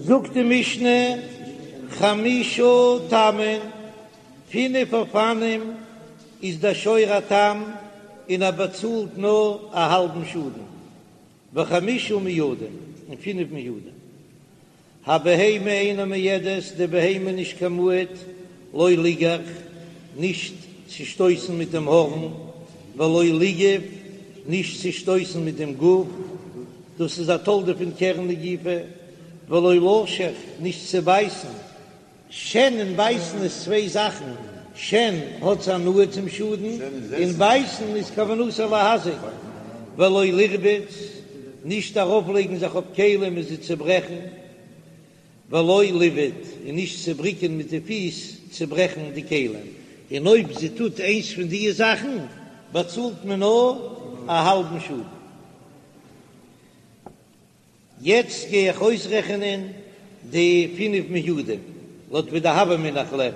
זאגט די משנה, חמשה תמין, פינף אופנים איז דער שור א תם און ער באצאלט נאר א האלבן שאדן, וחמשה מועדין, און פינף מועדין. הבהמה אינה מועדת, די בהמה נישט קיין מועד, לא ליגח, נישט צו שטויסן מיט דעם הארן, ולא ליגוף, נישט צו שטויסן מיט דעם גוף, דאס איז א תולדה פון קרן נגיפה, ולא לשוך, נישט צו בייסן, שן און בייסן איז צוויי זאכן, שן האט הנאה צום שאדן, און בייסן איז כוונתו להזיק, ולא לרבוץ, נישט ארויפלייגן זיך אויף כלים און זיי צוברעכן, ולא לבעוט, און נישט צו בריקען מיט די פיס צוברעכן די כלים, און אויב זי טוט איינס פון די זאכן באצאלט מען נאר א האלבן שאדן. יעצט גיי איך אויסרעכענען די פינף מועדים לויט ווי די הוה אמינא איך לערן,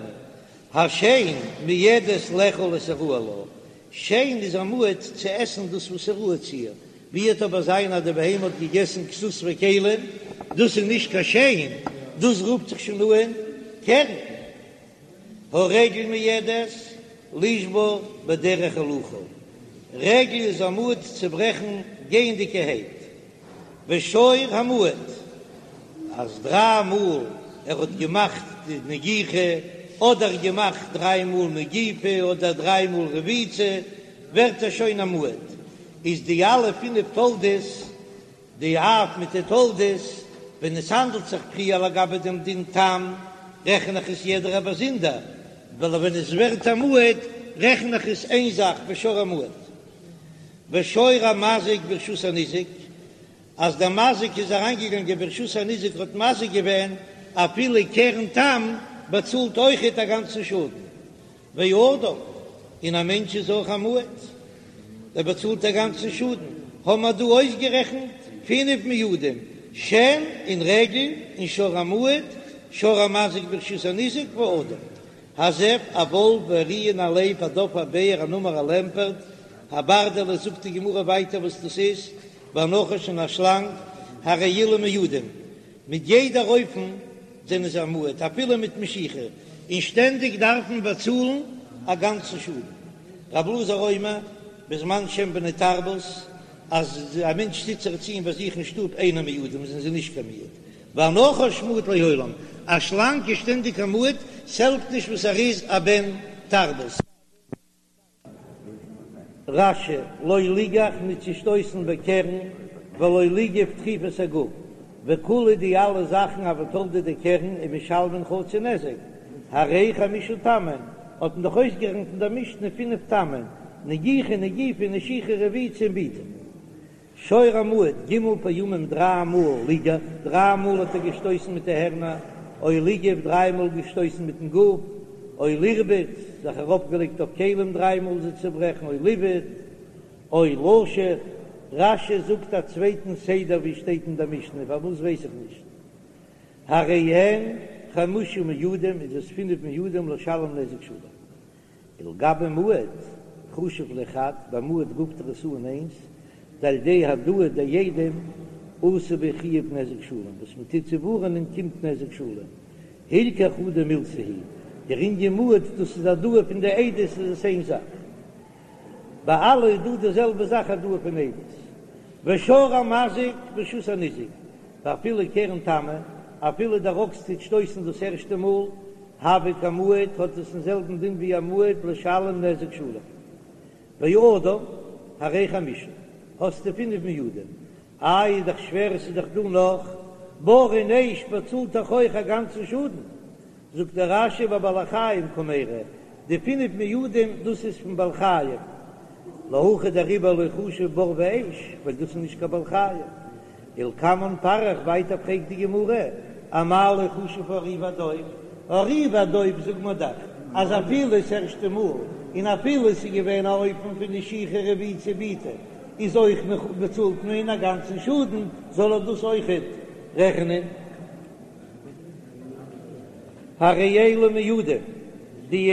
השן מועדת לאכול את הראוי לה, שן איז א מועד צו עסן דאס וואס איז ראוי צו איר, ווי וועט אבער זיין אז די בהמה האט געגעסן כסות וכלים, דאס איז נישט קיין שן, דאס רופט זיך שוין אן קרן. הרגל מועדת לשבור בדרך הילוכה, רגל איז א מועד צו ברעכן גייענדיגערהייט, ושור המועד אז דריי מאל ער האט געמאכט די נגיחה, אדער געמאכט דריי מאל נגיפה אדער דריי מאל רביצה, ווערט ער שוין א מועד, איז די אלע פינף תולדות די אב מיט די תולדות, ווען עס האנדלט זיך פריער לגבי דעם דין תם, רעכן איך עס יעדערע באזונדער, ווייל ווען עס ווערט א מועד, רעכן איך עס איין זאך בשור המועד. ושור המזיק ברשות הניזק, אז דער מזיק איז אריינגעגאנגען ברשות הניזק האט מזיק געווען, אפילו קרן תם באצאלט אויכעט א גאנצן שאדן. ואדם, און א מענטש איז אויך א מועד, ער באצאלט א גאנצן שאדן, האבן מיר דא אויסגערעכנט פינף מועדים, שן און רגל און שור המועד, שור המזיק ברשות הניזק ואדם, הזאב, א וואלף, והארי און א לייב, הדוב א בער, הנמר א לעמפערט, הברדלס, זאגט די גמרא ווייטער וואס דאס איז, והנחש און א שלאנג, הרי אלו מועדים, מיט יעדער אופן זענען זיי א מועד אפילו מיט משיכה, און שטענדיג דארף מען באצאלן א גאנצן שאדן. רב אלעזר אומר, בזמן שהם בני תרבות, אז א מענטש טוט זיך ציען ביי זיך אין שטוב אינם מועדים זענען זיי נישט קיין מועד, והנחש מועד לעולם, א שלאנג איז שטענדיג א מועד, ס'העלפט נישט וואס ער איז א בן תרבות. רש"י, לא ליגח ניט צו שטויסן בקרן, ולא ליגוף דחיפת הגוף, וכולהו די אלע זאכן הוו תולדה דקרן ומשלמין חצי נזק, הרי חמשה תמין, האט מען דאך אויסגערעכנט אין דער משנה פינף תמין, נגיחה נגיפה נשיכה רביצה און בעיטה. שור המועד, ג' פעמים דריי מאל ליגח, דריי מאל האט ער געשטויסן מיט די הערנער, או ליגוף, דריי מאל געשטויסן מיטן גוף, או לרבוץ, זיך ארויפגעלייגט אויף כלים דריי מאל זיי צוברעכן, או לבעוט, או לשוך, רש"י זאגט א צווייטן סדר ווי שטייט אין דער משנה, פארוואס ווייס איך נישט. הרי הן חמשה מועדים איז עס פינף מועדים לשלם נזק שלם. ולגבי מועד, חשיב ליה חד, ביי מועד רופט ער עס אן איינס, דעל ידי העדאה דעדים אתי ביה חיוב נזק שלם, וואס מען טוט צו ווארענען קומט נזק שלם, הילכך חדא מילתא היא, דער ענין מועד דאס איז העדאה פון די עדות איז עס איין זאך. ביי אלע איז דא די זעלבע זאך העדאה פון עדות. ושור המזיק ברשות הניזק, ואפילו קרן תמה, אפילו דער אקס טוט שטויסן דאס ערשטע מאל, הוי כמועד האט עס דעם זעלבן דין ווי א מועד לשלם נזק שלם. ואדם, הרי חמשה, האסטו פינף מועדים. איי איז דאך שווער עס איז דאך דא נאך בור און אש באצאלט דאך אויך א גאנצן שאדן. זאגט דער רש"י בבעלי חיים קמיירי, די פינף מועדים דאס איז פון בעלי חיים. להכא דעריבער לא חשיב בור ואש, ווייל דאס איז נישט קיין בעל חיים. ולקמן פריך, ווייטער פרעגט די גמרא, אמאי לא חשיב הארי והדוב, הארי והדוב זאגט מען דאך אז אפילו ס'ערשטע מאל און אפילו ס'איז געווען א אופן פון נשיכה רביצה בעיטה איז אויך באצאלט מען א גאנצן שאדן, זאל ער דאס אויכעט רעכענען. הרי אלו מועדים, די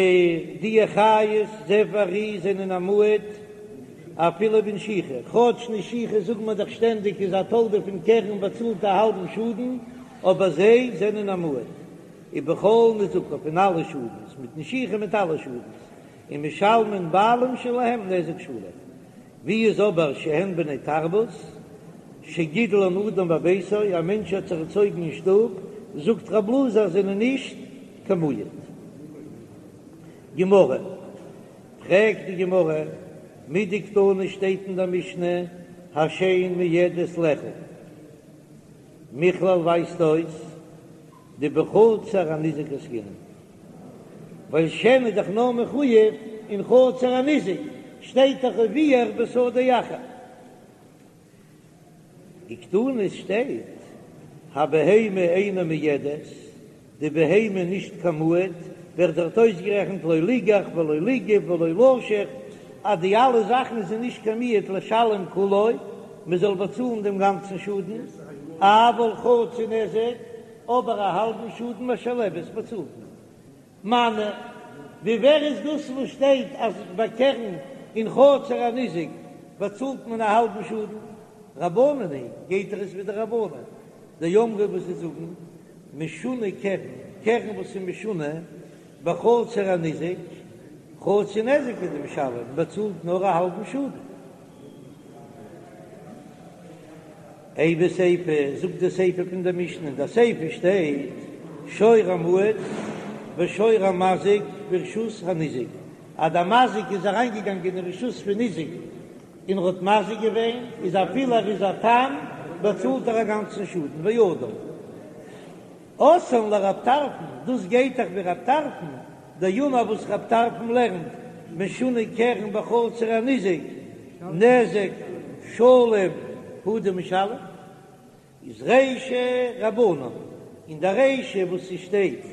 די חיות זאב וארי זענען א מועד אפילו בנשיכה, כאטש נשיכה זאגט מען דאך שטענדיג איז א תולדה פון קרן באצאלט א האלבן שאדן. אבער זיי זענען א מועד, ובכל נזקיו פון אלע שאדנס, מיט נשיכה מיט אלע שאדנס, ומשלמין בעלים שלהם נזק שלם. ווי איז אבער שהן בני תרבות, שגידלן אדם בביתו, א מענטש האט זיך ערצויגן אין שטוב, זאגט רב אלעזר זענען נישט קיין מועד. גמרא, פרעגט די גמרא, מדקתני שטייט אין דער משנה השן מועדת לאכול, מכלל ווייזט אויס דבחצר הניזק עסקינן, ווייל שן איז דאך נאר מחויב אין חצר הניזק, שטייט דאך ובער בשדה אחר. וקתני שטייט הבהמה אינה מועדת, די בהמה נישט קיין מועד, ווערט דארט אויסגערעכנט לא ליגח ולא ליגוף ולא לשוך, אז די אלע זאכן איז נישט קיין מועד לשלם כולו, מען זאל באצאלן דעם גאנצן שאדן, אבל חצי נזק, אבער א האלבן שאדן משלמת באצאלט מען. מני, ווי ווער איז דאס וואס שטייט אז ביי קרן אין חצר הניזק באצאלט מען א האלבן שאדן? רבנן היא, גייט דאך עס ווי די רבנן דאמרי וואס זיי זאגן משונה קרן, קרן וואס איז משונה בחצר הניזק, חצי נזק הוא דמשלם, באצאלט נאר א האלבן שאדן. אימא סיפא, זאגט די סיפא פון דער משנה, אין דער סיפא שטייט, שור המועד ושור המזיק ברשות הניזק, אז דער מזיק איז אריינגעגאנגען אין רשות פון ניזק און ער האט מזיק געווען, איז אפילו ער איז א תם, באצאלט ער א גאנצן שאדן, ואדם. אתאן לרב טרפון, דאס גייט דאך ווי רב טרפון, דאמר וואס רב טרפון לערנט, משונה קרן בחצר הניזק, נזק שלם הוא דמשלם, איז רישא רבנן, אין די רישא וואס ס'שטייט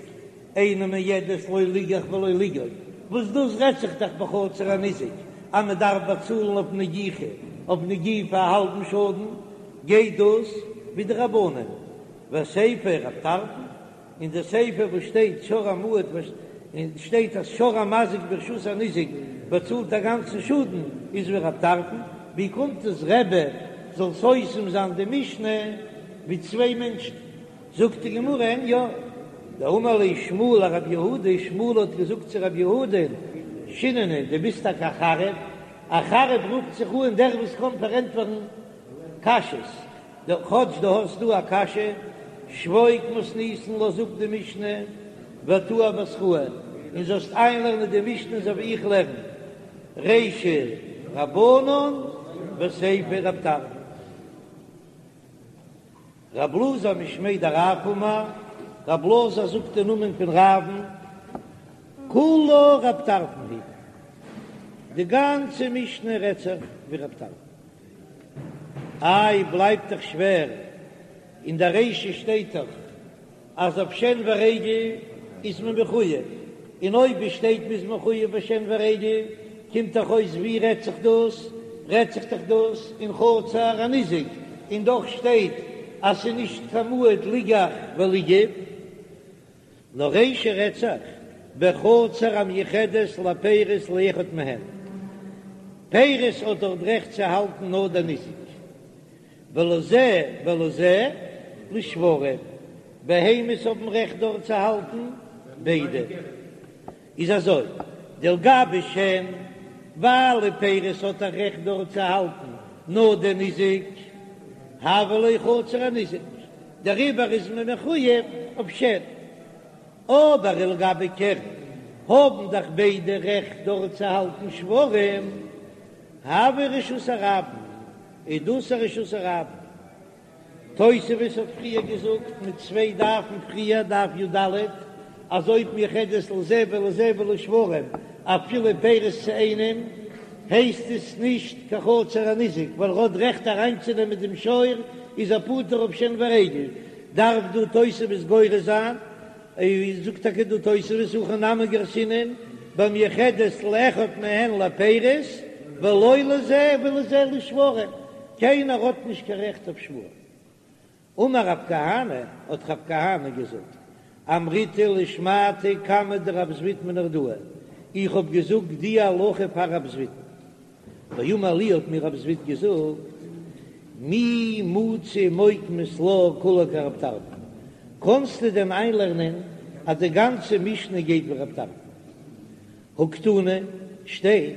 אינה מועדת לא ליגח ולא ליגוף, וואס דאס רעדט זיך דאך בחצר הניזק אז מען דארף באצאלן אויף נגיחה, אויף נגיפה א האלבן שאדן, גייט דאס ווי די רבנן. וסיפא רב טרפון, אין די סיפא וואס שטייט שור המועד און שטייט אז שור המזיק ברשות הניזק באצאלט א גאנצן שאדן איז ווי רב טרפון, ווי קומט עס רבי זאל סותם זיין די משנה ווי צוויי מענטשן? זאגט די גמרא אין יא, דאמר ליה שמואל לרב יהודה, שמואל האט געזאגט צו רב יהודה, שיננא דו ביסט טאקע א חריף, א חריף רופט זיך אן דער וואס קען פארענטפערן קשיות, כאטש דו האסט דא א קשיא, שבוק מתניתין לאז אפ די משנה ותא אבתראי, און זאלסט איינלערנען די משנה אזוי ווי איך לערן, רישא רבנן וסיפא רב טרפון. רב אלעזר משמיה דרב אמר, רב אלעזר זאגט אין נאמען פון רב'ן, כולה רב טרפון היא, די גאנצע משנה רעדט זיך ווי רב טרפון. איי בלייבט דאך שווער, אין דער רישא שטייט דאך אז אויף שן ורגל איז מען מחויב, און אויב עס שטייט מ'איז מחויב ביי שן ורגל, קומט דאך אויס ווי רעדט זיך דאס? רעדט זיך דאך דאס אין חצר הניזק, און דאך שטייט אז ס'איז נישט קיין מועד ליגח וליגוף. נאר רישא רעדט זיך בחצר המיוחדת לפירות לאחד מהן, פירות האט דארט רעכט צו האלטן נאר דער ניזק, ולזה ולזה לשוורים, בהמות האבן רעכט דארט צו האלטן ביידע, איז אזוי, דלגבי שן, ווייל די פירות האט א רעכט דארט צו האלטן נאר דער ניזק, הויא לה חצר הניזק, דעריבער איז מען מחויב אויף שן. אבער ולגבי קרן האבן דאך ביידע רעכט דארט צו האלטן שוורים, הויא רשות הרבים, איז דאס א רשות הרבים. תוספות האט פריער געזאגט מיט צוויי דפים פריער, דף י"ד, אז אויב מיוחדת לזה ולזה ולשוורים אפילו פירות צו איינעם, הייסט עס נישט קיין חצר הניזק, ווייל ער האט רעכט אריינצונעמען דעם שור, איז ער פטור אויף שן ורגל, דארף דא תוספות גורס זיין, זאגט טאקע דא תוספות הכא נמי גרסינן במיוחדת לאחד מהן לפירות ולא לזה ולזה לשוורים, קיינער האט נישט קיין רעכט אויף שוורים. אמר רב כהנא, האט רב כהנא געזאגט, אמריתה לשמעתא קמיה דרב זביד מנהרדעא, איך האב געזאגט די הלכה פאר רב זביד'ן, ואמר לי האט מיר רב זביד געזאגט, מי מצי מוקמת לה כולה כרב טרפון. קאנסטו דען איינלערנען אז די גאנצע משנה גייט ווי רב טרפון? הא קתני, שטייט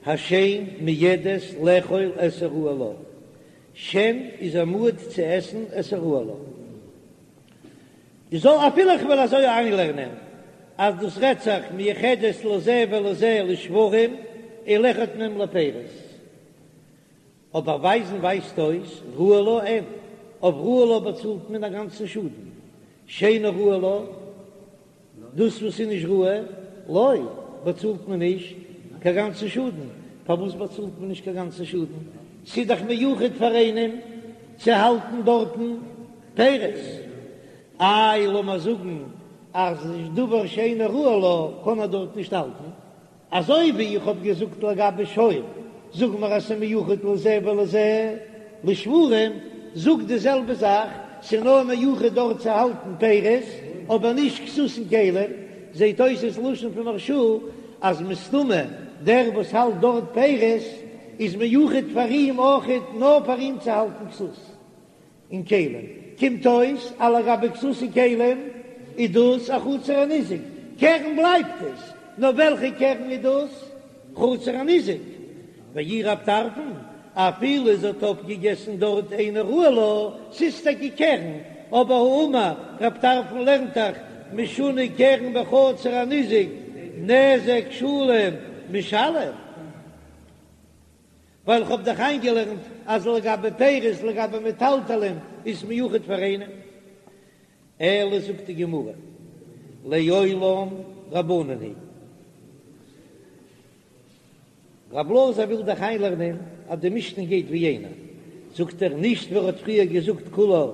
השן מועדת לאכול את הראוי לה, שן איז א מועד צו עסן את הראוי לה. איז זאל אפילו איך וועל אזוי איינלערנען אז דאס רעדט זיך מיוחדת לזה ולזה לשוורים ולאחד מהם לפירות, אבער ווייזן ווייזט אויס ראוי לה אין, אויף ראוי לה באצאלט מען א גאנצן שאדן, שאינו ראוי לה, דאס וואס איז נישט ראוי לא, באצאלט מען נישט קיין גאנצן שאדן, פארוואס באצאלט מען נישט קיין גאנצן שאדן? ס'איז דאך מיוחד פאר איינעם צו האלטן דארטן פירות, איי לאמער זאגן אז דבר שאינו ראוי לה קען ער דארט נישט האלטן, אזוי ווי איך האב געזאגט לגבי שור, זאג מיר אז ס'מיוחד לזה ולזה לשוורים, זאג די זעלבע זאך, ס'נאר מיוחד דארט צו האלטן פירות, אבער נישט כסות און כלים, זעט אויס עס לשון פון מהרש"א אז מסתמא דער וואס האלט דארט פירות איז מיוחד פאר אים אויכעט נאר פאר אים צו האלטן כסות. און כלים, קומט אויס אז לגבי כסות און כלים איז דאס א חצר הניזק, קרן בלייבט עס, נאר וועלכע קרן איז דאס? חצר הניזק. ואי רב טרפון, אפילו זי האט אויפגעגעסן דארט אינו ראוי לה, ס'איז טאקע קרן, אבער האמר רב טרפון לערנט דאך משונה קרן בחצר הניזק נזק שלם משלם. ווייל איך האב דאך איינגעלערנט אז לגבי פירות לגבי מטלטלין איז מיוחד פאר איינעם. אלא זאגט די גמרא לעולם רבנן היא. רב אלעזר וויל דאך איינלערנען אז די משנה גייט ווי איינער, זאגט ער נישט ווי ער האט פריער געזאגט כולה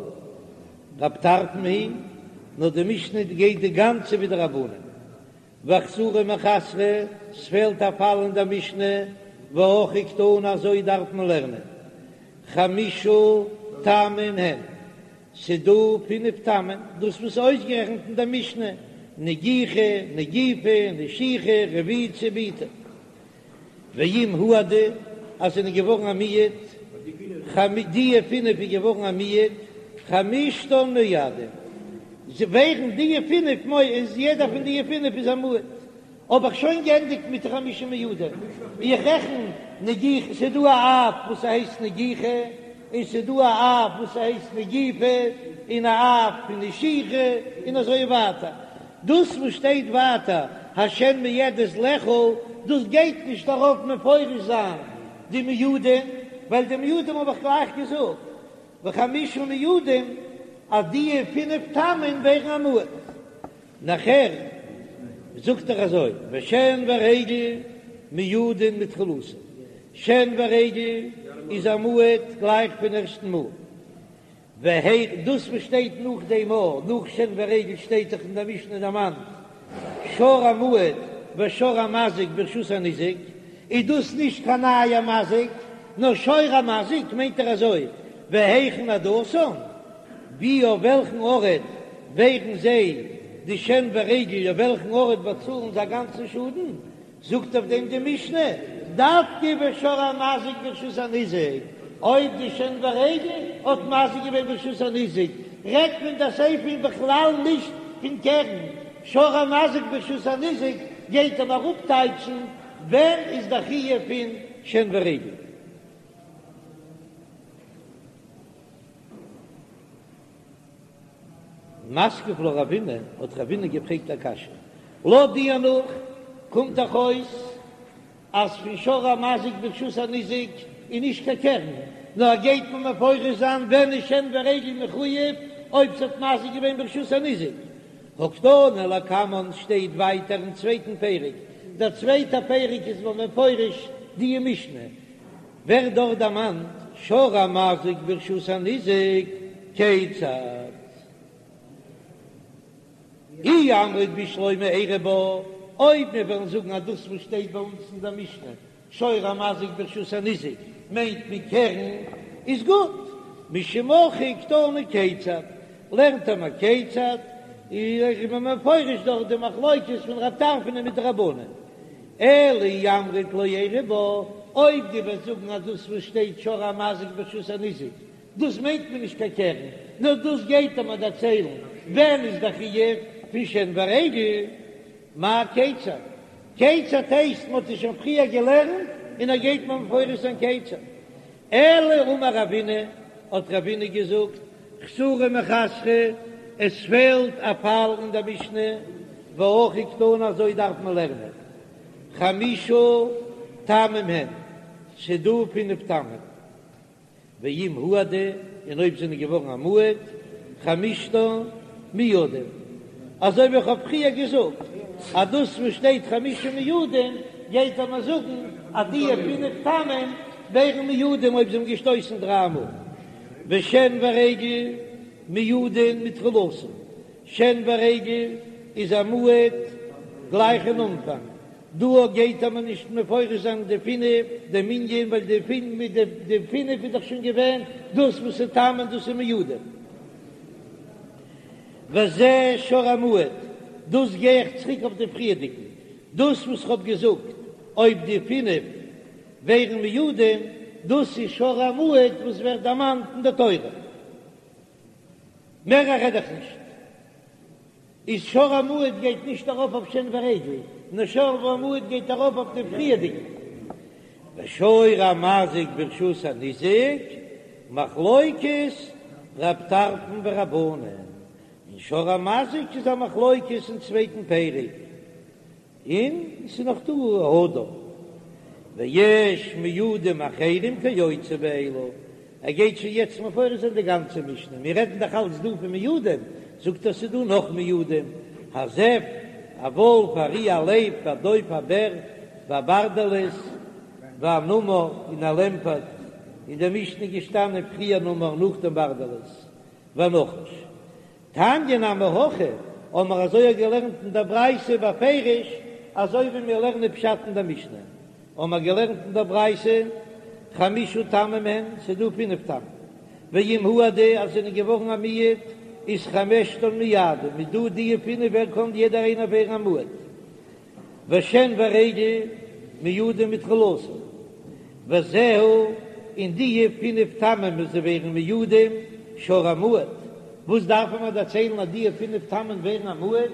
רב טרפון היא, נאר די משנה גייט די גאנצע ווי די רבנן. ואחסורי מיחסרא, ס'פעלט א פאל אין דער משנה, והכי קתני אזוי דארף מען לערנען, חמשה תמין הן, ס'דא פינף תמין, דאס וואס איז אויסגערעכנט אין דער משנה, נגיחה, נגיפה, נשיכה, רביצה, בעיטה. ואם הועדו, אז זענען געווארן א מועד, דיע פינף איז געווארן א מועד, חמשתן מועדים, זיי ווערן דיע פינף מועד, איז יעדער פון דיע פינף איז א מועד. האב איך שוין גענדיגט מיט די חמשה מועדים, איך רעכן נגיחה, ס'איז דא א אב וואס ס'הייסט נגיחה, און ס'איז דא א אב וואס ס'הייסט נגיפה, און א אב פון נשיכה, און אזוי ווייטער. דאס וואס שטייט ווייטער השן מועדת לאכול, דאס גייט נישט ארויף מפרש זיין די מועדים, ווייל די מועדים האב איך גלייך געזאגט, וחמשה מועדים, אז די פינף תמין ווערן א מועד. נאכער זאגט ער אזוי, ושן ורגל מועדין מתחילתן, שן ורגל איז א מועד גלייך פון ערשטן מאל. והיכ דאס וואס שטייט נאך דעם א, נאך שן ורגל שטייט דאך אין דער משנה דערמאנט שור המועד ושור המזיק ברשות הניזק, איז דאס נישט קיין נייער מזיק, נאר שור המזיק מיינט ער אזוי, והיכן העדתן, ווי אויף וועלכן ארט ווערן זיי די שן ורגל אויף וועלכן ארט באצאלן זיי א גאנצן שאדן, זאגט אויף דעם די משנה, דווקא בשור המזיק ברשות הניזק, אויב די שן ורגל האט מזיק געווען ברשות הניזק, רעדט מען די סיפא בכלל נישט פון קרן, שור המזיק ברשות הניזק גייט אים אראפטייטשן ווען איז די חיוב פון שן ורגל. מתקיף לה רבינא, האט רבינא געפרעגט א קשיא, לויט די הנחה קומט דאך אויס אז פון שור המזיק ברשות הניזק איז נישט קיין קרן, נאר גייט מען מפרש זיין ווען איז שן ורגל מחויב אויב ס'האט מזיק געווען ברשות הניזק. הא קתני לקמן שטייט ווייטער אין צווייטן פרק, דער צווייטער פרק איז מען מפרש די משנה, ווערט דארט דערמאנט שור המזיק ברשות הניזק, כיצד? אי אמרת בשלמא איירי בה, אויב מיר וועלן זאגן אז דאס וואס שטייט ביי אונז אין דער משנה שור המזיק ברשות הניזק מיינט מען קרן, איז גוט, משום הכי קתני כיצד, לערנט ער מיר כיצד, איז מען מפרש דארט די מחלוקת פון רב טרפון מיט די רבנן. אלא אי אמרת לא איירי בה, אויב דו וועסט זאגן אז דאס וואס שטייט שור המזיק ברשות הניזק. דאס מיינט מען נישט קיין קרן, נאר דאס גייט ער מיר דערציילן ווען איז דער חיוב פון שן ורגל, מאי כיצד? כיצד הייסט מען האט עס שוין פריער געלערנט און ער גייט מיר מפרש זיין כיצד. אלא אמר רבינא, האט רבינא געזאגט, חסורי מחסרא, עס פעלט א פאל אין דער משנה, והכי קתני אזוי דארף מען לערנען, חמשה תמים הן, ס'דא פינף תמים. ואם הועדו, און אויב זענען געווארן א מועד, חמשתן מועדים. אזוי ווי איך האב פריער געזאגט, אז דאס וואס שטייט חמשה מועדים, גייט ער מיר זאגן אז די פינף תמים ווערן מועדים אויב זיי האבן געשטויסן דריי מאל. ושן ורגל מועדין מתחילתן, שן ורגל איז א מועד גלייך אין אנפאנג, דא גייט ער מיר נישט מפרש זיין די פינף, די מנין, ווייל די פינף מיט די די פינף איז דאך שוין געווען דאס וואס איז תמים דאס איז מועדים. וזה שור המועד, דאס גיי איך צוריק אויף די פריערדיגן, דאס וואס כ'האב געזאגט אויב די פינף ווערן מועדים, דאס איז שור המועד וואס ווערט דערמאנט אין די תורה. מער רעד איך נישט. איז שור המועד גייט נישט ארויף אויף שן ורגל, נאר שור המועד גייט ארויף אויף די פריערדיגע. ושור המזיק ברשות הניזק, מחלוקת רב טרפון ורבנן, און שור המזיק איז א מחלוקת אין צווייטן פרק. און ס'איז נאך דא האדם ויש מועדים אחרים כיוצא באלו, ער גייט שוין יעצט מפרש זיין די גאנצע משנה, מיר רעדן דאך אלץ דא פון מועדים, זאגט ער ס'איז דא נאך מועדים, הזאב, א וואלף, הארי, א לייב, והדוב, א בער, והברדלס, והנמר, און א לעמפערט, אין די משנה איז געשטאנען פריער נמר נאכדעם ברדלס, והנחש. תניא נמי הכי, האבן מיר אזוי געלערנט אין דער ברייתא בפירוש, אזוי ווי מיר לערנען פשט אין דער משנה, האבן מיר געלערנט אין דער ברייתא, חמשה תמים הן, ס'איז דא פינף תמים, ואם הועדו אז זענען געווארן א מועד, איז חמשתן מועדים, איז דא די פינף ווער קען יעדער איינער ווערן א מועד. ושן ורגל מועדים מתחילתן, וזהו, און די פינף תמים וואס זיי ווערן מועדים, שור המועד, וואס דארף מען דערציילן אז די פינף תמים ווערן א מועד,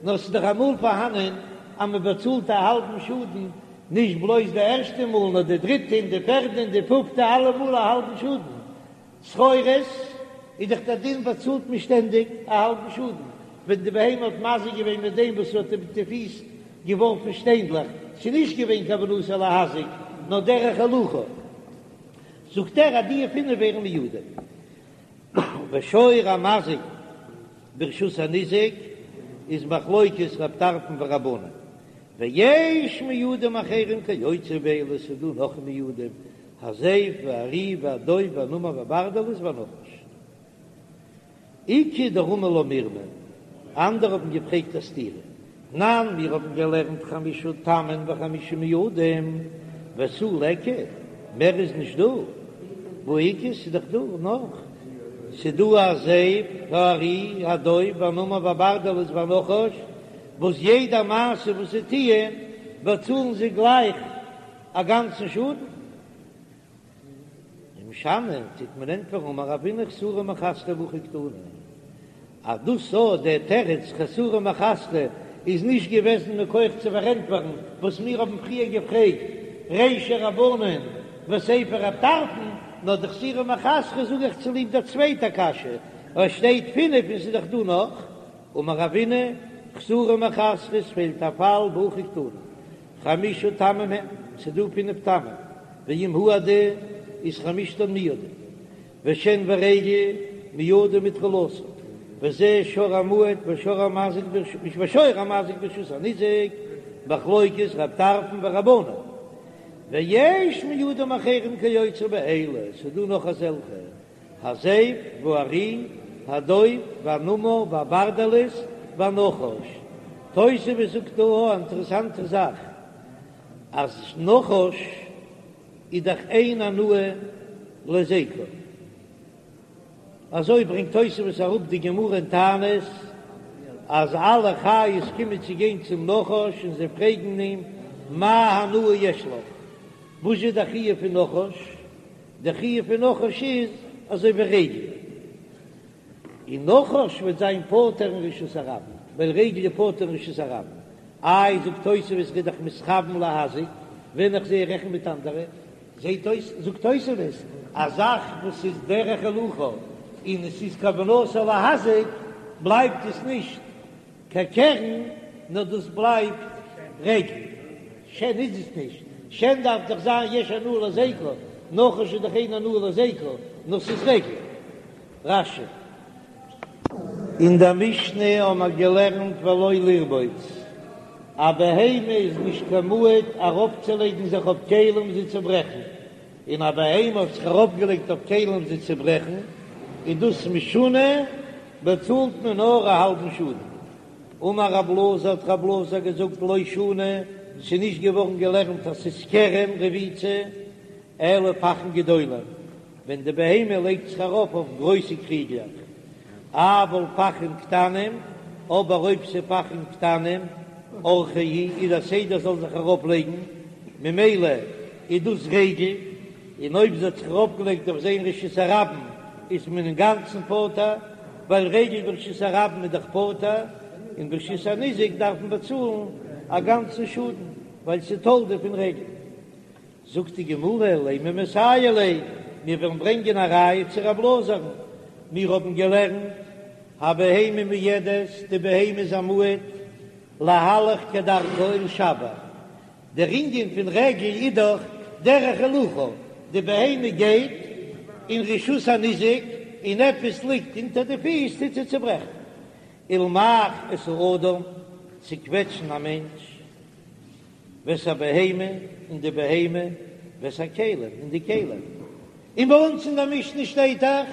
נאר ס'איז דאך אמאל פארהאנען אז מען באצאלט א האלבן שאדן, נישט בלויז די ערשטע מאל נאר די דריטע און די פערדע און די פופטע אלע מאל א האלבן שאדן, צרורות איז דאך דער דין באצאלט מען שטענדיג א האלבן שאדן ווען די בהמה האט מזיק געווען מיט דעם וואס האט מיט די פיס געווארפן שטיינדלעך, ס'איז נישט געווען כוונתו להזיק נאר דרך הילוכו, זאגט ער אז די פינף ווערן מועדים. ושור המזיק ברשות הניזק איז מחלוקת רב טרפון ורבנן, ויש מועדים אחרים כיוצא באלה, ס'איז דא נאך מועדים הזאב והארי והדוב והנמר והברדלס והנחש. איכא דרמי לה מרמא, אנדערע האבן געפרעגט א סתירה, תנן מיר האבן געלערנט חמשה תמין וחמשה מועדים ותו ליכא, מער איז נישט דא, והא איכא ס'איז דאך דא נאך, ס'איז דא הזאב והארי הדוב והנמר והברדלס והנחש, וואס יעדע מעשה וואס זיי טוען באצאלן זיי גלייך א גאנצן שאדן. ומשני טוט מען ענטפערן אמר רבינא חסורי מחסרא והכי קתני אז דאס אז דער תירוץ חסורי מחסרא איז נישט געוועזן מכח צו פארענטפערן וואס מיר האבן פריער געפרעגט רישא רבנן וסיפא רב טרפון, נאר די חסורי מחסרא זאג איך צוליב דער צווייטער קשיא, ווייל שטייט פינף און ס'איז דאך דא נאך. אמר רבינא חסורי מחסרא עס פעלט א פאל והכי קתני חמשה תמים הן, ס'איז דא פינף תמים, ואם הועדו איז חמשתן מועדים, ושן ורגל מועדים מתחילתן, וזה שור המועד ושור המזיק ושור המזיק ברשות הניזק, מחלוקת רב טרפון ורבנן, ויש מועדים אחרים כיוצא באלה, ס'איז דא נאך אזעלכע. הזאב והארי, הדוב והנמר והברדלס והנחש. תוספות זאגט דא א אינטערעסאנטע זאך, אז נחש איז דאך אין הנאה להזיקו. אזוי ברענגט תוספות אראפ די גמרא אין תענית, אז אלע חיות קומען צו גיין צום נחש און זיי פרעגן אים מה הנאה יש לך, וואס איז די חיוב פון נחש? די חיוב פון נחש איז. אזוי ווי רגל, און נחש וועט זיין פטור אין רשות הרבים, ווייל רגל איז פטור אין רשות הרבים. איי זאגט תוספות ר'איז דאך מתכוון להזיק, ווען איך זע רעכן מיט אנדערע, זעט אויס זאגט תוספות א זאך וואס איז דרך הילוכה און עס איז כוונתו להזיק בלייבט עס נישט קיין קרן נאר דאס בלייבט רגל, שן איז עס נישט, שן דארף דאך זיין יש הנאה להזיקו, נחש איז דאך אין הנאה להזיקו, נאר ס'איז רגל. רש"י. אין דער משנה האבן מיר געלערנט ולא לרבוץ, א בהמה איז נישט קיין מועד ארויפצולייגן זיך אויף כלים זיי צו ברעכן, און א בהמה האט זיך ארויפגעלייגט אויף כלים זיי צו ברעכן, איז דאס משונה, באצאלט מען נאר א האלבן שאדן. אמר רב אלעזר האט רב אלעזר געזאגט לא שנו, ס'איז נישט געווארן געלערנט אז ס'איז קרן רביצה, אלא פכין גדולים, ווען די בהמה לייגט זיך ארויף אויף גרויסע קריגלעך, אבל פכין קטנים, אבער אויב ס'איז פכין קטנים, אורחיה הוא, איז א סדר זאל זיך ארויף לייגן, ממילא איז דאס רגל, און אויב זי האט זיך ארויף געלייגט אויף זיי אין רשות הרבים איז מען אינגאנצן פטור, ווייל רגל ברשות הרבים איז דאך פטור, און ברשות הניזק דארף מען באצאלן א גאנצן שאדן, ווייל ס'איז תולדה פון רגל. זאגט די גמרא, לימא מסייע ליה, מיר וועלן ברענגען א ראיה צו רב אלעזר'ן, מיר האבן געלערנט, הבהמה מועדת, די בהמה איז א מועד, להלך כדרכה ולשבר, דער ענין פון רגל איז דאך דרך הילוכה, די בהמה גייט אין רשות הניזק און עפעס ליגט אונטער די פיס טוט זי צוברעכן, ולמעך את האדם, צוקוועטשן א מענטש. ואת הבהמה, און די בהמה, ואת הכלים, און די כלים. און ביי אונז אין דער משנה שטייט דאך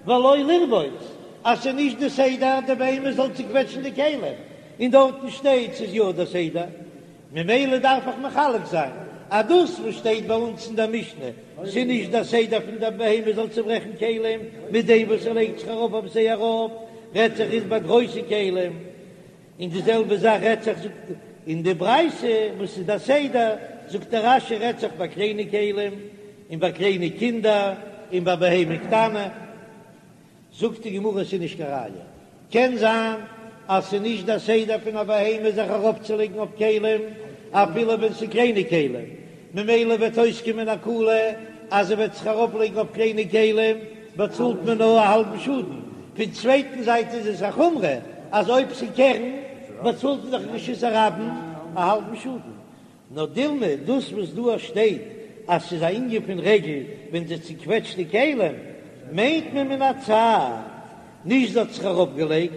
ולא לרבוץ, אז ס'איז נישט די סדר די בהמה זאל צוקוועטשן די כלים, און דארטן שטייט ס'איז יא די סדר, ממילא דארף איך מחלק זיין אז דאס וואס שטייט ביי אונז אין דער משנה ס'איז נישט די סדר פון די בהמה זאל צוברעכן כלים מיט דעם וואס ער לייגט זיך ארויף אויף זיי ארויף, רעדט זיך איז ביי גרויסע כלים. און די זעלבע זאך רעדט זיך זאגט אין די ברייתא וואס איז די סדר, זאגט דער רש"י רעדט זיך ביי קליינע כלים און ביי קליינע קינדער און ביי בהמה קטנה, זאגט די גמרא עס איז נישט קיין ראיה, קען זיין אז ס'איז נישט די סדר פון א בהמה זיך ארויפצולייגן אויף כלים אפילו ווען ס'איז קליינע כלים, ממילא וועט אויסקומען א קולא אז ער וועט זיך ארויפלייגן אויף קליינע כלים באצאלט מען נאר א האלבן שאדן, פון צווייטן זייט איז עס א חומרא אז אויב ס'קרן באצאלט מען דאך רשות הרבים א האלבן שאדן. נאר דילמא דאס וואס דא שטייט אז ס'איז א ענין פון רגל ווען זי צוקוועטשט די כלים מיינט מען מן הצד, נישט זי האט זיך אראפגעלייגט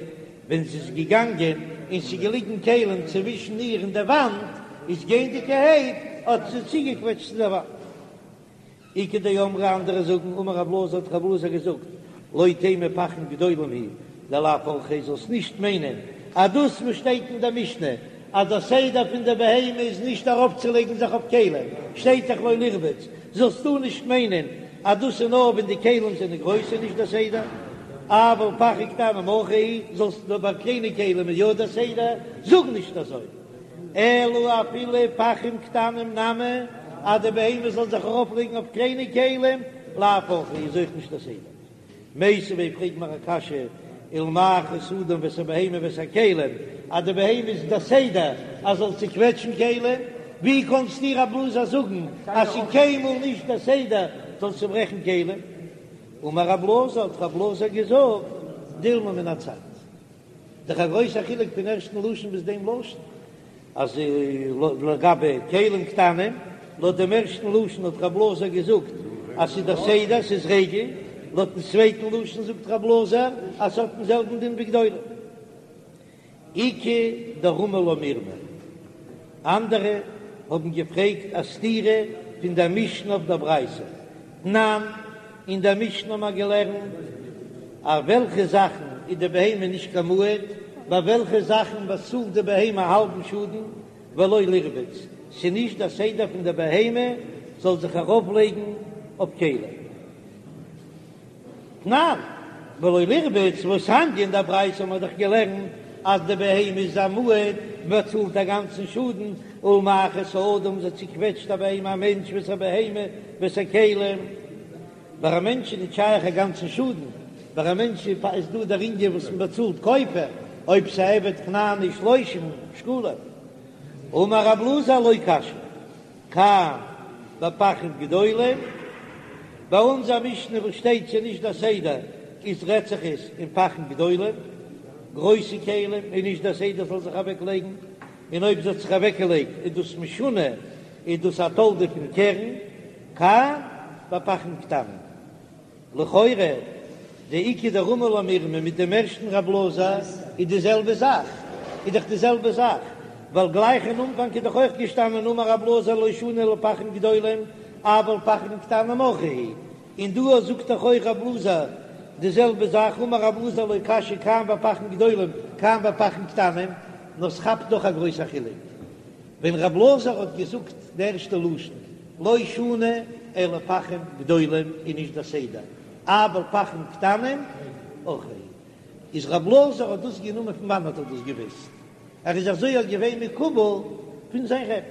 ווען זי איז געגאנגען און ס'איז געליגן כלים צווישן איר און די וואנט, איז גייענדיגערהייט האט זי צוגעקוועטשט צו די וואנט. איכא דאמרי אנדערע זאגן אמר רב אלעזר האט רב אלעזר געזאגט לא תימא פכין גדולים הוא דלאו אורחיה זאלסט נישט מיינען אז דאס וואס שטייט אין די משנה אז דער סדר פון די בהמה איז נישט ארויפצולייגן זיך אויף כלים שטייט דאך לא לרבוץ זאלסטו נישט מיינען אז דאס איז נאר ווען די כלים זענען גרויס איז נישט דער סדר, אבל פכין קטנים אורחיה הוא, זאלסט נאר ביי קליינע כלים איז יא דער סדר, זאג נישט אזוי, אלא אפילו פכים קטנים נמי, אז די בהמה זאל זיך ארויף לייגן אויף קליינע כלים, לאו אורחיה איז אויך נישט דער סדר. מיתיבי פרעג מיר א קשיא, ולמעך את האדם ואת הבהמה ואת הכלים, אז די בהמה איז די סדר אז זאל צוקוועטשן כלים, ווי קאנסטו רב אלעזר זאגן אז ס'איז קיינמאל נישט די סדר זאל צוברעכן כלים? אמר רב אלעזר, האט רב אלעזר געזאגט, דילמא מן הצד. דאך א גרויסע חילוק פון ערשטן לשון ביז דעם לשון. אז לגבי כלים קטנים, לויט דעם ערשטן לשון האט רב אלעזר געזאגט אז ס'איז דער סדר, ס'איז רגל, לויטן צווייטן לשון זאגט רב אלעזר אז ס'האט דעם זעלבן דין ווי גדולים. איכא דרמי לה מירמא, אנדערע האבן געפרעגט א סתירה פון דער משנה אויף דער ברייתא, תנן, אין דער משנה האבן מיר געלערנט אויף וועלכע זאכן איז די בהמה נישט קיין מועד, ביי וועלכע זאכן באצאלט די בהמה א האלבן שאדן, ולא לרבוץ, ס'איז נישט דער סדר פון די בהמה זאל זיך ארויפלייגן אויף כלים. תנן, ולא לרבוץ, והתניא אין דער ברייתא האבן מיר דאך געלערנט אז די בהמה איז א מועד, מ'באצאלט א גאנצן שאדן, ולמעך את האדם, זי צוקוועטשט א בהמה א מענטש ואת הבהמה ואת הכלים. ביי א מענטש איז נישט שייך א גאנצן שאדן, ביי א מענטש איז דא דער ענין וואס מען באצאלט כופר, אויב ס'איז א עבד כנעני שלושים שקלים. אמר רב אלעזר לא קשיא, כאן בפחים גדולים, ביי אונזער משנה וואס שטייט ס'איז נישט דער סדר איז רעדט זיך עס אין פחים גדולים, גרויסע כלים, איז נישט דער סדר זאל זיך אוועק לייגן, און אויב זי האט זיך אוועק געלייגט איז דאס משונה, איז דאס א תולדה פון קרן, כאן בפחים קטנים. לכאורה די איכא דרמי לה מירמא מיט דעם ערשטן רב אלעזר איז די זעלבע זאך, איז דאך די זעלבע זאך, ווייל גלייך אין אנפאנג איז דאך אויך געשטאנען אמר רב אלעזר לא שנו אלא פחים גדולים אבל פחים קטנים אורחא הוא, און דא זאגט דאך אויך רב אלעזר די זעלבע זאך אמר רב אלעזר לא קשיא כאן בפחים גדולים כאן בפחים קטנים, נאר ס'כאפט דאך א גרויסע חילוק. ווען רב אלעזר האט געזאגט די ערשטע לשון לא שנו אלא פחים גדולים איז נישט דער סדר, אבל פחים קטנים אורחא, איז רב אלעזר האט דאס גענומען פון וואנעט האט ער דאס געוויסט? ער איז אזוי אויך געווען מקובל פון זיין רבי,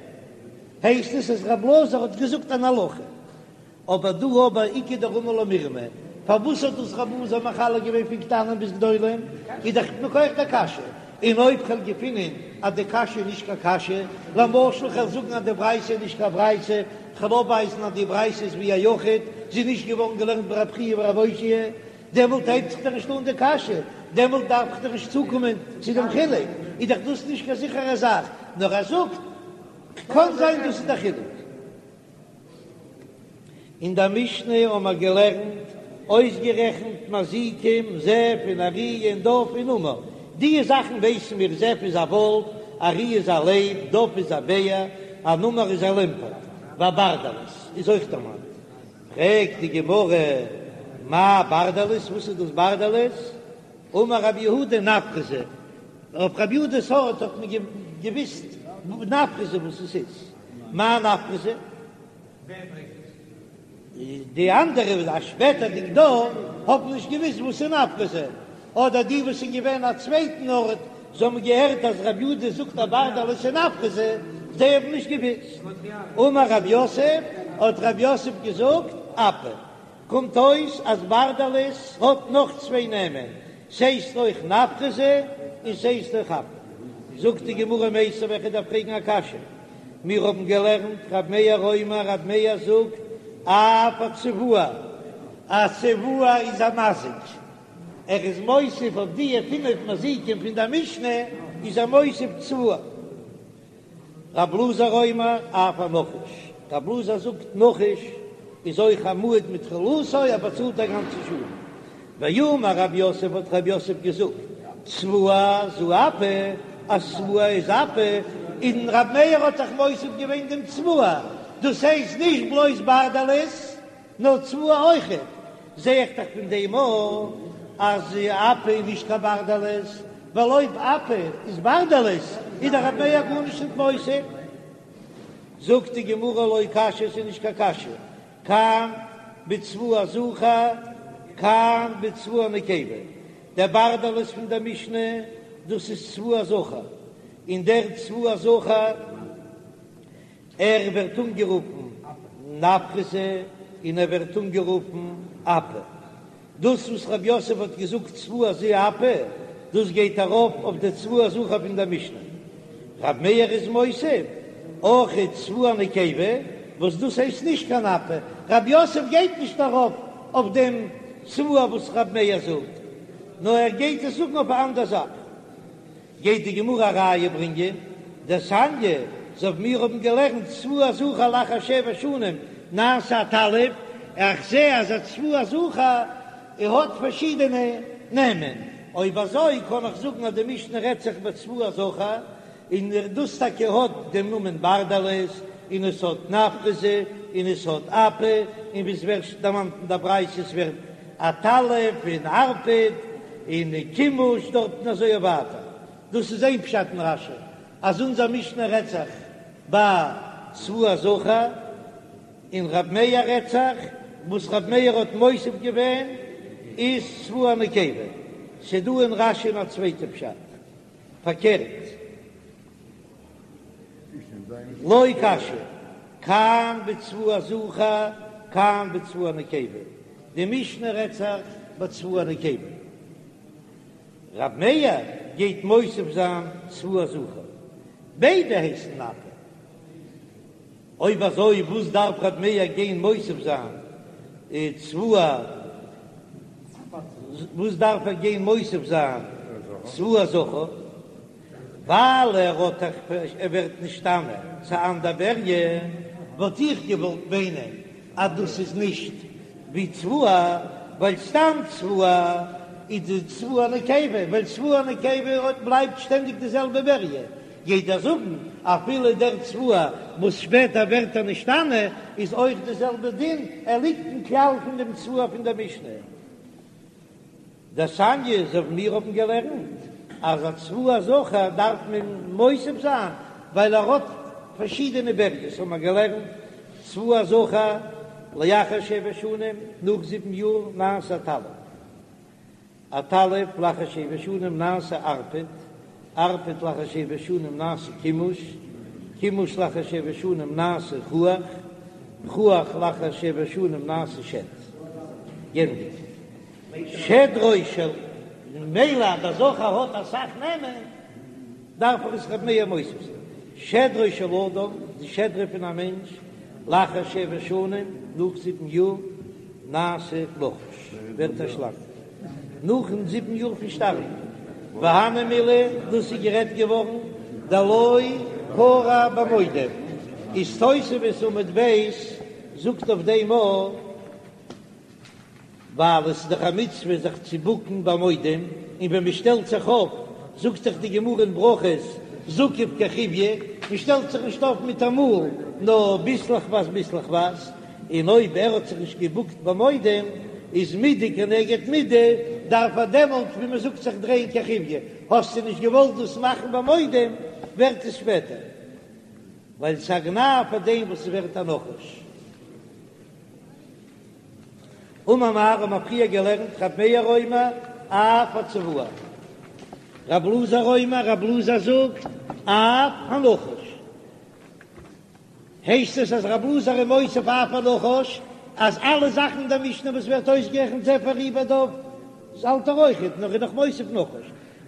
הייסט עס אז רב אלעזר האט געזאגט אן הלכה. אבער דא אבער איכא דרמי לה מירמא, פארוואס האט דאס רב אלעזר מחלק געווען פון קטנים ביז גדולים, איז דאך מכח דער קשיא, און אויב כ'וועל געפינען אז די קשיא איז נישט קיין קשיא, למשל כ'וועל זאגן אז די ברייתא איז נישט קיין ברייתא, כ'וועל אויפווייזן אז די ברייתא איז ווי א יחיד, זי איז נישט געווארן געלערנט ביי רב חייא ורב אושעיא, דעמאלט הייבט זיך דאך נישט אן די קשיא, דעמאלט דארף איך דאך נישט צוקומען צו דעם חילוק, איז דאך דאס נישט קיין זיכערע זאך, נאר ער זאגט קען זיין דאס איז דער חילוק. אין דער משנה האבן מיר געלערנט, אויסגערעכנט מזיקים, זאב און ארי און דוב און נמר. די זאכן ווייסן מיר, זאב איז א וואלף, ארי איז א לייב, דוב איז א בער, א נמר איז א לעמפערט, והברדלס איז אויך דערמאנט. פרעגט די גמרא, מאי ברדלס, וואס איז דאס ברדלס? אמר רב יהודה נפרזא, אויף רב יהודה'ס ארט האט מען געוויסט נפרזא וואס עס איז. מאי נפרזא? די אנדערע א שפעטערדיג דור האבן נישט געוויסט וואס איז נפרזא, אדער די וואס איז געווען א צווייטן ארט, זיי האבן געהערט אז רב יהודה זאגט אז ברדלס איז נפרזא, זיי האבן נישט געוויסט. אמר רב יוסף, האט רב יוסף געזאגט, אפא. קומט אויס אז ברדלס האט נאך צוויי נעמען, ס'הייסט אויך נפרזא און ס'הייסט אויך אפא. זאגט די גמרא מיתיבי וועל איך דיר פרעגן א קשיא, מיר האבן געלערנט רב מאיר אומר רב מאיר זאגט אף הצבוע, א צבוע איז א מזיק, ער איז מוסיף אויף די פינף מזיקים פון די משנה איז ער מוסיף צבוע. רב אלעזר אומר אף הנחש, רב אלעזר זאגט נחש איז אויך א מועד מתחילתו ער באצאלט א גאנצע שאדן. ואמר רב יוסף האט רב יוסף געזאגט צבוע זו אפא אז צבוע איז אפא, און רב מאיר האט זיך מוסיף געווען דעם צבוע, דאס הייסט נישט בלויז ברדלס נאר צבוע אויכעט, זע איך דאך פון דעם אויך אז אפא איז נישט קיין ברדלס, ווייל אויב אפא איז ברדלס איז דאך רב מאיר גארנישט נישט מוסיף. זאגט די גמרא לא קשיא ס'איז נישט קיין קשיא, כאן בצבוע זכר כאן בצבוע נקבה, דער ברדלס פון דער משנה דאס איז צבוע זכר, און דער צבוע זכר ער ווערט אנגערופן נפרזא און ער ווערט אנגערופן אפא. דאס וואס רב יוסף האט געזאגט צבוע זו אפא, דאס גייט ארויף אויף די צבוע זכר פון דער משנה. רב מאיר איז מוסיף אויך צבוע נקבה, וואס דאס הייסט נישט קיין אפא. רב יוסף גייט נישט ארויף אויף דעם צבוע וואס רב מאיר זאגט, נאר ער גייט עס זאגן אויף א אנדער זאך. גייט די גמרא א ראיה ברענגען, דתניא, אזוי ווי מיר האבן געלערנט צבוע זכר לאחר שבע שנים נעשה עטלף, איך זע אז א צבוע זכר האט פארשידענע נעמען, אויב אזוי קען איך זאגן אז די משנה רעדט זיך בצבוע זכר, און דאס טאקע האט דעם נאמען ברדלס, און עס האט נפרזא, און עס האט אפא, און ווי עס ווערט דערמאנט אין די ברייתא עס ווערט עטלף און ערפד און כימוש דארטן אזוי ווייטער. דאס איז איין פשט אין רש"י אז אונזער משנה רעדט זיך ביי צבוע זכר, און רב מאיר רעדט זיך וואס רב מאיר האט מוסיף געווען איז צבוע נקבה. ס'דא אין רש"י א צווייטע פשט פארקערט. לא קשיא, כאן בצבוע זכר, כאן בצבוע נקבה. די משנה רעדט זיך בצבוע נקבה. רב מאיר גייט מוסיף זיין צבוע זכר. ביידע הייסן נפה. אויב אזוי וואס דארף רב מאיר גיין מוסיף זיין צבוע? וואס דארף ער גיין מוסיף זיין צבוע זכר? ווייל ער האט דאך ער ווערט נשתנה צו אנדער בריה, וואלט איך געוואלט מיינען אז דאס איז נישט ווי צבוע, ווייל סתם צבוע איז די צבוע נקבה, ווייל צבוע נקבה בלייבט שטענדיג די זעלבע בריה, גייט ער זאגן אפילו דער צבוע וואס שפעטער ווערט ער נשתנה איז אויך די זעלבע דין, ער ליגט אין כלל פון דעם צבוע פון דער משנה. דתניא אזוי ווי מיר האבן געלערנט אז א צבוע זכר דארף מען מוסיף זיין ווייל ער האט פארשידענע בריות האבן מיר געלערנט צבוע זכר לאחר שבע שנים נאך זיבן יאר נעשה עטלף עטלף לאחר שבע שנים נעשה ערפד ערפד לאחר שבע שנים נעשה כימוש כימוש לאחר שבע שנים נעשה חוח חוח לאחר שבע שנים נעשה שד. גענדיגט. שדרו של, ממילא אז דער זכר האט אסאך נעמען, דארף ער עס ר' מאיר מוסיף זיין. שדרו של אדם, די שדרה פון א מענטש, לאחר שבע שנים, נאך זיבן יאר, נעשה נחש, ווערט א שלאנג, נאכן זיבן יאר פון שטארבן. והני מילי, דאס איז גערעדט געווארן דלא כרע במודים, איז תוספות עמוד ב' זאגט אויף דעם א. ווייל עס איז דאך א מצוה זיך צו בוקן ביי מודים, און ווען מען שטעלט זיך אויף, זאגט דאך די גמרא אין ברכות, זקיף כחיויא, מען שטעלט זיך נישט אויף מיט א מאל, נאר ביסלעכווייז ביסלעכווייז, און אויב ער האט זיך נישט געבוקט ביי מודים, איז מידה כנגד מידה, דארף ער דעמאלט ווי מען זאגט זיך דרייען כחיויא, האסטו נישט געוואלט דאס מאכן ביי מודים, ווערט עס שפעטער, ווייל ס'איז א גנאי פאר דעם וואס ס'ווערט א נחש. אמר מר האבן מיר פריער געלערנט רב מאיר אומר אף הצבוע, רב אלעזר אומר רב אלעזר זאגט אף הנחש, הייסט עס אז רב אלעזר איז מוסיף אף הנחש אז אלע זאכן אין דער משנה וואס ווערט אויסגערעכנט זאב ארי ודוב האלט ער אויכעט נאר איז נאך מוסיף נחש,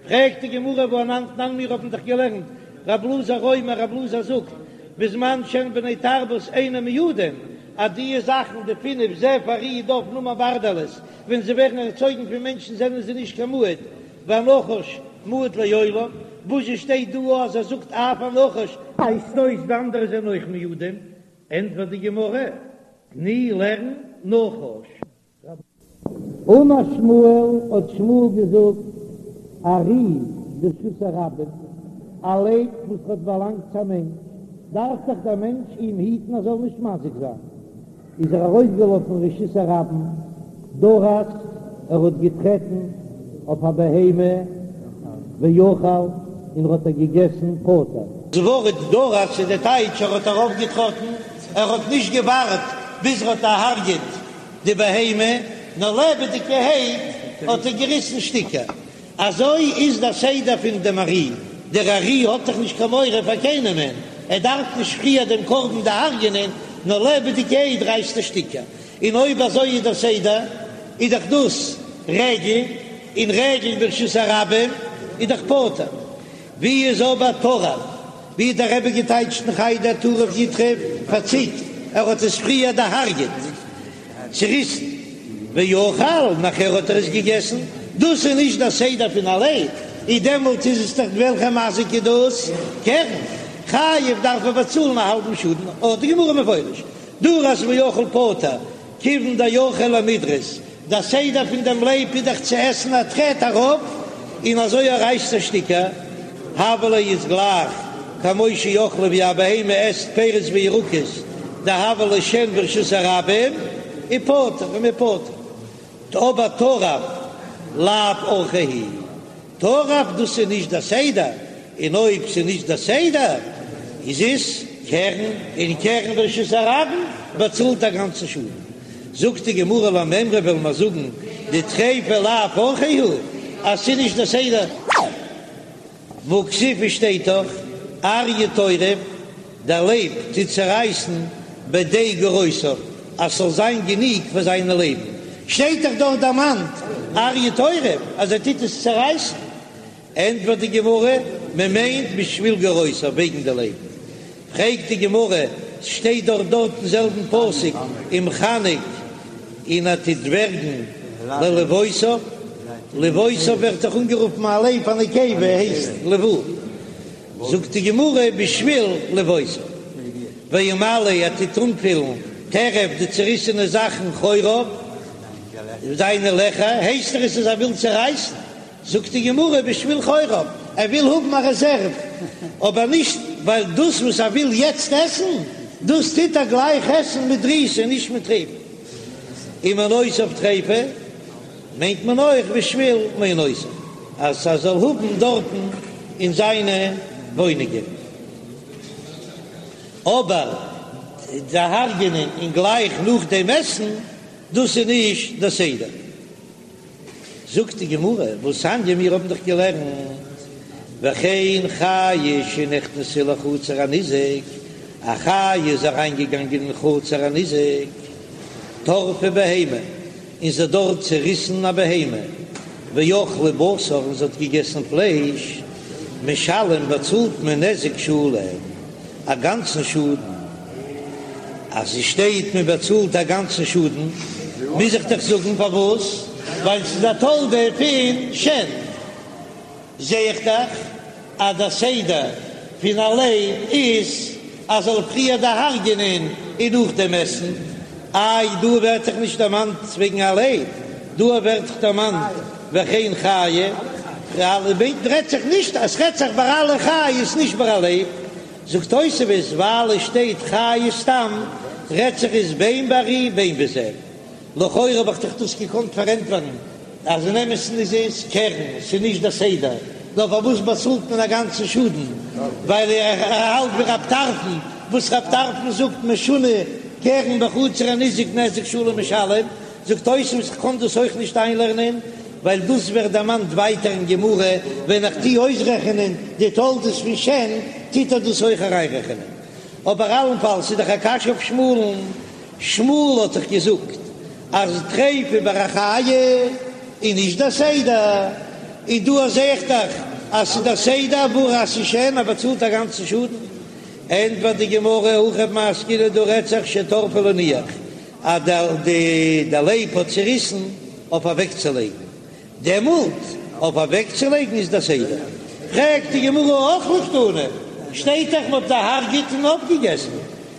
פרעגט די גמרא והא אנן תנן מיר האבן דאך געלערנט רב אלעזר אומר רב אלעזר זאגט בזמן שהן בני תרבות אינן מועדין אז די זאכן די פינף זאב ארי דוב נמר ברדלס ווען זיי ווערן ערצויגן פון מענטשן זענען זיי נישט קיין מועד והנחש מועד לעולם וואזשע שטייט דא אז ער זאגט אף הנחש ווייזט אויס די אנדערע זענען אויך מועדים ענטפערט די גמרא תני לערן נחש. אמר שמואל, האט שמואל געזאגט, ארי ברשות הרבים, א לייב וואס האט באלאנגט צו א מענטש, דארף דאך דער מענטש אים היטן ער זאל נישט מזיק זיין, איז ער ארויסגעלאפן רשות הרבים, דרס, ער האט געטרעטן אויף א בהמה, ואכל, און ער האט איר געגעסן, פטור. דאס ווארט דרס איז די טייטש ער האט ארויפגעטראטן, ער האט נישט געווארט ביז ער האט דערהרגעט די בהמה, נאר לעבעדיגערהייט האט ער געריסן שטיקער. אזוי איז דער סדר פון דעם ארי, דער ארי האט דאך נישט קיין מורא פאר קיינעמען, ער דארף נישט פריער דעם קרבן דערהרגענען, נאר לעבעדיגערהייט רייסט ער שטיקער. און אויב אזוי איז דער סדר, איז דאך דאס רגל, און רגל ברשות הרבים איז דאך פטור. ווי איז אבער טרף? ווי האט דער רבי געטייטשט אין חדר טרף יטרף פארציקט, ער האט עס פריער דערהרגעט, צוריסן, ואכל, נאכער האט ער עס געגעסן, דאס איז נישט דער סדר פון א לייב, איז דעמאלט איז עס דאך וועלכע מזיק איז דאס? קרן, חייב דארף ער באצאלן א האלבן שאדן, האט די גמרא מפורש, דרס ואכל פטור, כיוון דאורחיה למידרס, דער סדר פון דעם לייב איז דאך צו עסן א טרעט ארויף און אזוי ער רייסט ער שטיקער, הוה ליה איז גלייך כמו שאכלה ווי א בהמה עסט פירות וירקות דהוה ליה שן ברשות הרבים ופטור און מ'איז פטור, אבער טרף לאו אורחיה הוא. טרף דאס איז נישט דער סדר, און אויב ס'איז נישט דער סדר איז עס קרן, און קרן ברשות הרבים באצאלט א גאנצן שאדן. זאגט די גמרא למימרא וועלן מיר זאגן דטריפה לאו אורחיה הוא אז ס'איז נישט דער סדר. והכתיב שטייט דאך אריה טורף, דער לייב טוט צערייסן בדי גורותיו אז ס'זאל זיין גענוג פאר זיינע לייבן. שטייט דאך דארט דערמאנט אריה טורף אז ער טוט עס צערייסן. ענטפערט די גמרא, מען מיינט בשביל גורותיו, וועגן די לייבן. פרעגט די גמרא, ס'שטייט דאך דארט אין זעלבן פסוק ומחנק און ער טוט ווערגן ללבאותיו, לבאותיו ווערט דאך אנגערופן א לייב א נקבה הייסט לבאה, זאגט די גמרא בשביל לבאותיו, וימלא ער טוט אנפילן טרף די צעריסענע זאכן חוריו, זיינע לעכער, הייסט דאך עס אז ער וויל צערייסן. זאגט די גמרא בשביל חוריו, ער וויל האבן א רעזערוו, אבער נישט ווייל דאס וואס ער וויל יעצט עסן, דאס טוט ער גלייך עסן מיט דריסה און נישט מיט טריפה. ומעונותיו טריפה מיינט מען אויך בשביל מעונותיו, אז ער זאל האבן דארטן אין זיינע וואוינונגען. אבער דערהרגענען און גלייך נאכדעם עסן, דאס איז נישט דער סדר. זאגט די גמרא, והתניא מיר האבן דאך געלערנט, וכן חיה שנכנסה לחצר הניזק, א חיה איז אריינגעגאנגען אין חצר הניזק, טרפה בהמה, און זי האט דארט צעריסן א בהמה, ואכלה בשר, און זי האט געגעסן פלייש, משלם באצאלט מען נזק שלם. א גאנצן שאדן, אז עס שטייט מען באצאלט א גאנצן שאדן, מוז איך דאך זאגן פארוואס, ווייל ס'איז א תולדה פון שן. זע איך דאך אז דער סדר פון א לייב איז אז זאל פריער דערהרגענען און נאכדעם עסן. איי דא ווערט דאך נישט דערמאנט וועגן א לייב, דא ווערט דאך דערמאנט וכן חיה, רעדט זיך נישט אז ס'רעדט זיך ביי אלע חיות נישט ביי א לייב. זאגט תוספות ווייל עס שטייט חיה סתם רעדט זיך עס בין בארי בין בזאב, לכאורה האב איך דאך דאס געקאנט פארענטפערן אז אין אמת'ן איז עס קרן, ס'איז נישט דער סדר, נאר פארוואס באצאלט מען א גאנצן שאדן, ווייל ער האלט ווי רב טרפון, וואס רב טרפון זאגט משונה קרן בחצר הניזק נזק שלם משלם, זאגט תוספות איך קען דאס אויך נישט איינלערנען, ווייל דאס ווערט דערמאנט ווייטער אין גמרא, ווען איך טוה אויסרעכענען די תולדות פון שן, טוט ער דאס אויך אריינרעכענען. אבער אלנפאלס איז דאך א קשיא אויף שמואל'ן, שמואל האט דאך געזאגט אז טריפה ביי א חיה איז נישט דער סדר, און דא זעה איך דאך אז ס'איז דער סדר ווארום ס'איז שן, מען באצאלט א גאנצן שאדן. ענטפערט די גמרא, הכא במאי עסקינן דא רעדט זיך שטרפה להניח, אז דער לייב האט צעריסן אויף אוועקצולייגן, דעמאלט אויף אוועקצולייגן איז דער סדר. פרעגט די גמרא אכלה קתני, שטייט דאך מ'האט דערהרגעט און אויפגעגעסן.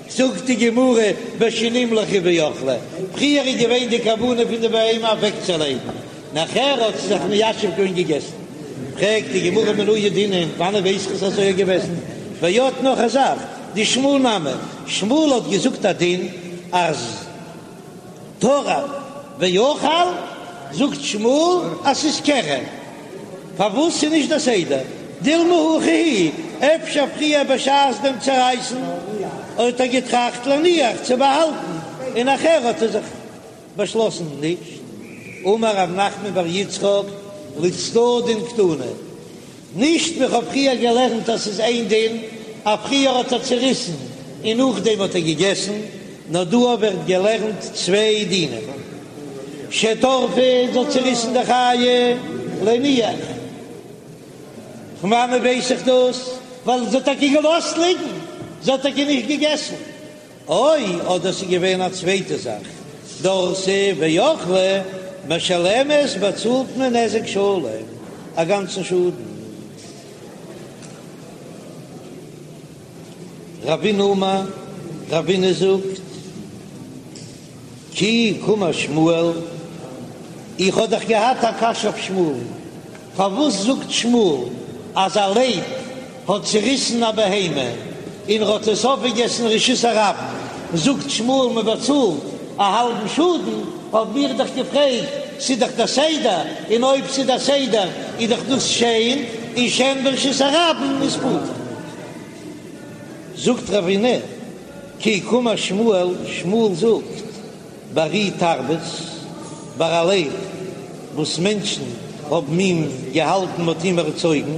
זאגט די גמרא בשנמלכה ואכלה, פריער איז געווען די כוונה פון די בהמה אוועקצולייגן, נאכער האט זי זיך מיישב געווען געגעסן. פרעגט די גמרא מנא ידעינן, וואנען ווייס איך אז אזוי איז געוועזן? ועוד נאך א זאך, דשמואל נמי, שמואל האט געזאגט א דין אז טרף ואכל, זאגט שמואל אז ס'איז קרן, פארוואס ס'איז נישט די סדר? דילמא הכי הוא, אפשר פריער בשעת דעם צערייסן האט ער געטראכט להניח צו באהאלטן, און נאכער האט ער זיך באשלאסן נישט. אמר רב נחמן בר יצחק לצדדין קתני, נישט ווי כ'האב פריער געלערנט אז ס'איז איין דין אז פריער האט ער צעריסן און נאכדעם האט ער געגעסן, נאר דא ווערט געלערנט צוויי דינים, שטרפה זי האט צעריסן די חיה להניח, פון וואנעט ווייס איך דאס? ווייל זי האט טאקע געלאזט ליגן, זי האט טאקע נישט געגעסן. או, אדער ס'איז געווען א צווייטע זאך, דרסה ואכלה, משלמת באצאלט מען נזק שלם, א גאנצן שאדן. רבינא אמר, רבינא זאגט, כי קאמר שמואל, איך האב דאך געהאט א קשיא אויף שמואל'ן, פארוואס זאגט שמואל אז א לייב האט צוריסן א בהמה און ר'האט עס אויפגעגעסן רשות הרבים, זאגט שמואל מ'באצאלט א האלבן שאדן, האב מיר דאך געפרעגט, ס'איז דאך דער סדר, און אויב ס'איז דער סדר איז דאך דאס שן, און שן ברשות הרבים איז פטור. זאגט רבינא כי קאמר שמואל, שמואל זאגט בארי תרבות, ביי א לייב וואס מענטשן האבן אים געהאלטן מ'האט אים ערצויגן,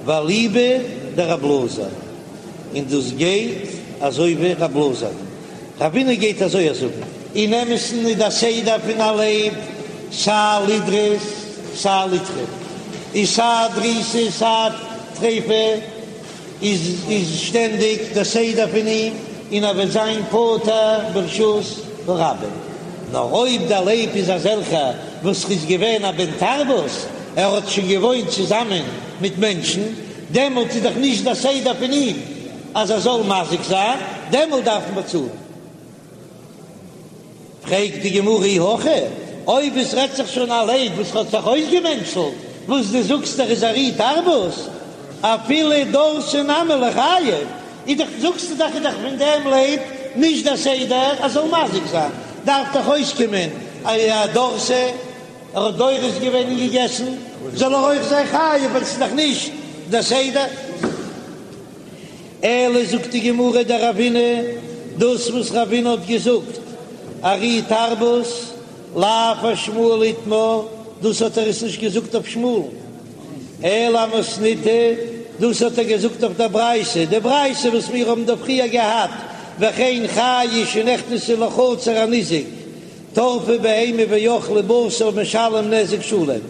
ואליבא דרב אלעזר, און דאס גייט אזוי ווי רב אלעזר, רבינא גייט אזוי זאגן. אין אמת'ן איז דער סדר פון א לייב סיי לדרוס סיי לטרוף, איז סיי דריסה סיי טריפה איז איז שטענדיג דער סדר פון אים און ער וועט זיין פטור ברשות הרבים. נאר אויב דער לייב איז אזעלכער וואס איז געווען א בן תרבות, ער האט שוין געוואוינט צוזאמען מיט מענטשן, דעמאלט איז דאך נישט דער סדר פון אים אז ער זאל מזיק זיין, דעמאלט דארף מען באצאלן. פרעגט די גמרא אי הכי, אויב עס רעדט זיך שוין א לייב וואס האט זיך אויסגעמענטשלט, וואס דו זאגסט ער איז ארי תרבות, אפילו דרסה נמי ליחייב, איז דאך זאגסטו דאך איז דאך פון דעם לייב נישט דער סדר אז זאל מזיק זיין, דארף דאך אויסקומען אז דרסה, ער האט דורס געווען און געגעסן, זאל ער אויך זיין חייב ווייל עס איז דאך נישט דער סדר. אלא זאגט די גמרא דרבינא, דאס וואס רבינא האט געזאגט ארי תרבות לאו אשמואל איתמר, דאס האט ער עס נישט געזאגט אויף שמואל'ן, אלא אמתניתא, דאס האט ער געזאגט אויף דער ברייתא, די ברייתא וואס מיר האבן דא פריער געהאט, וכן חיה שנכנסה לחצר הניזק, טרפה בהמה ואכלה בשר משלם נזק שלם.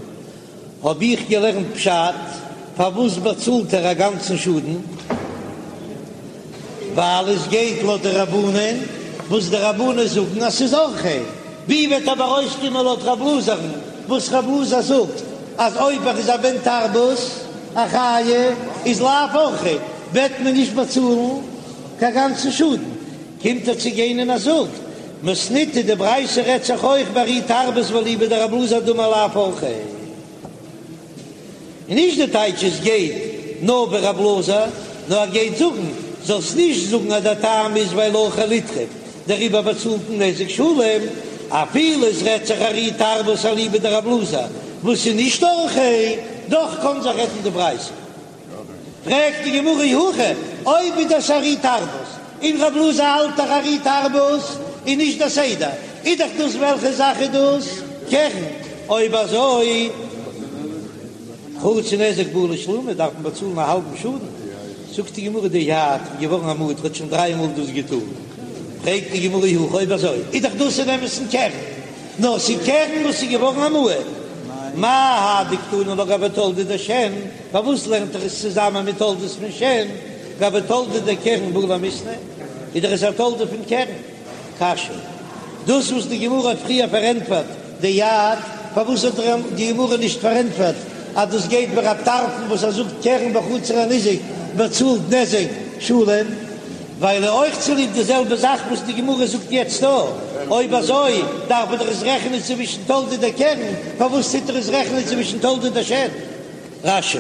האב איך געלערנט פשט, פארוואס באצאלט ער א גאנצן שאדן? ווייל עס גייט לויט די רבנן, וואס די רבנן זאגן אז ס'איז אורחיה. ווי וועט אבער אויסקומען לויט רב אלעזר'ן, וואס רב אלעזר זאגט אז אויב ער איז א בן תרבות, א חיה, איז לאו אורחיה, וועט מען נישט באצאלן קיין גאנצן שאדן. קומט ער צו גיין און ער זאגט, מתניתא די ברייתא רעדט זיך אויך בארי תרבות ואליבא דרב אלעזר דאמר לאו אורחיה, און נישט די טייטש עס גייט נאר ווי רב אלעזר, נאר ער גייט זאגן, זאלסט נישט זאגן אז דער טעם איז ווייל אורחיה לטרוף, דעריבער באצאלט מען נזק שלם, אפילו עס רעדט זיך ארי תרבות אליבא דרב אלעזר וואס איז נישט אורחיה, דאך קען זיך רעדן די ברייתא. פרעגט די גמרא אי הכי, אויב איז דאס ארי תרבות, און רב אלעזר האלט דאך ארי תרבות איז נישט דער סדר, איז דאך דאס וועלכע זאך איז דאס? קרן, אויב אזוי חצי נזק בעי לשלומי דארף מען באצאלן א האלבן שאדן, זאגט די גמרא דאייעד איז געווארן א מועד האט שוין דריי מאל דאס געטאן, פרעגט די גמרא אי הכי אויב אזוי איז דאך דאס אין אמת'ן קרן, נאר ס'איז קרן וואס איז געווארן א מועד, מאי האי דקתני לה גבי תולדה דשן, פארוואס לערנט ער עס צוזאמען מיט תולדות פון שן, גבי תולדה דקרן בעי למיתנא, איז דאך עס א תולדה פון קרן. קשיא, דאס וואס די גמרא האט פריער פארענטפערט דאייעד, פארוואס האט די גמרא נישט פארענטפערט אז דאס גייט ווי רב טרפון וואס ער זאגט קרן בחצר הניזק באצאלט נזק שלם? ווייל אויך צוליב די זעלבע זאך וואס די גמרא זאגט יעצט דא, אויב אזוי דארף מען דאך עס רעכענען צווישן תולדה דקרן, פארוואס טוט ער עס רעכענען צווישן תולדה דשן? רש"י.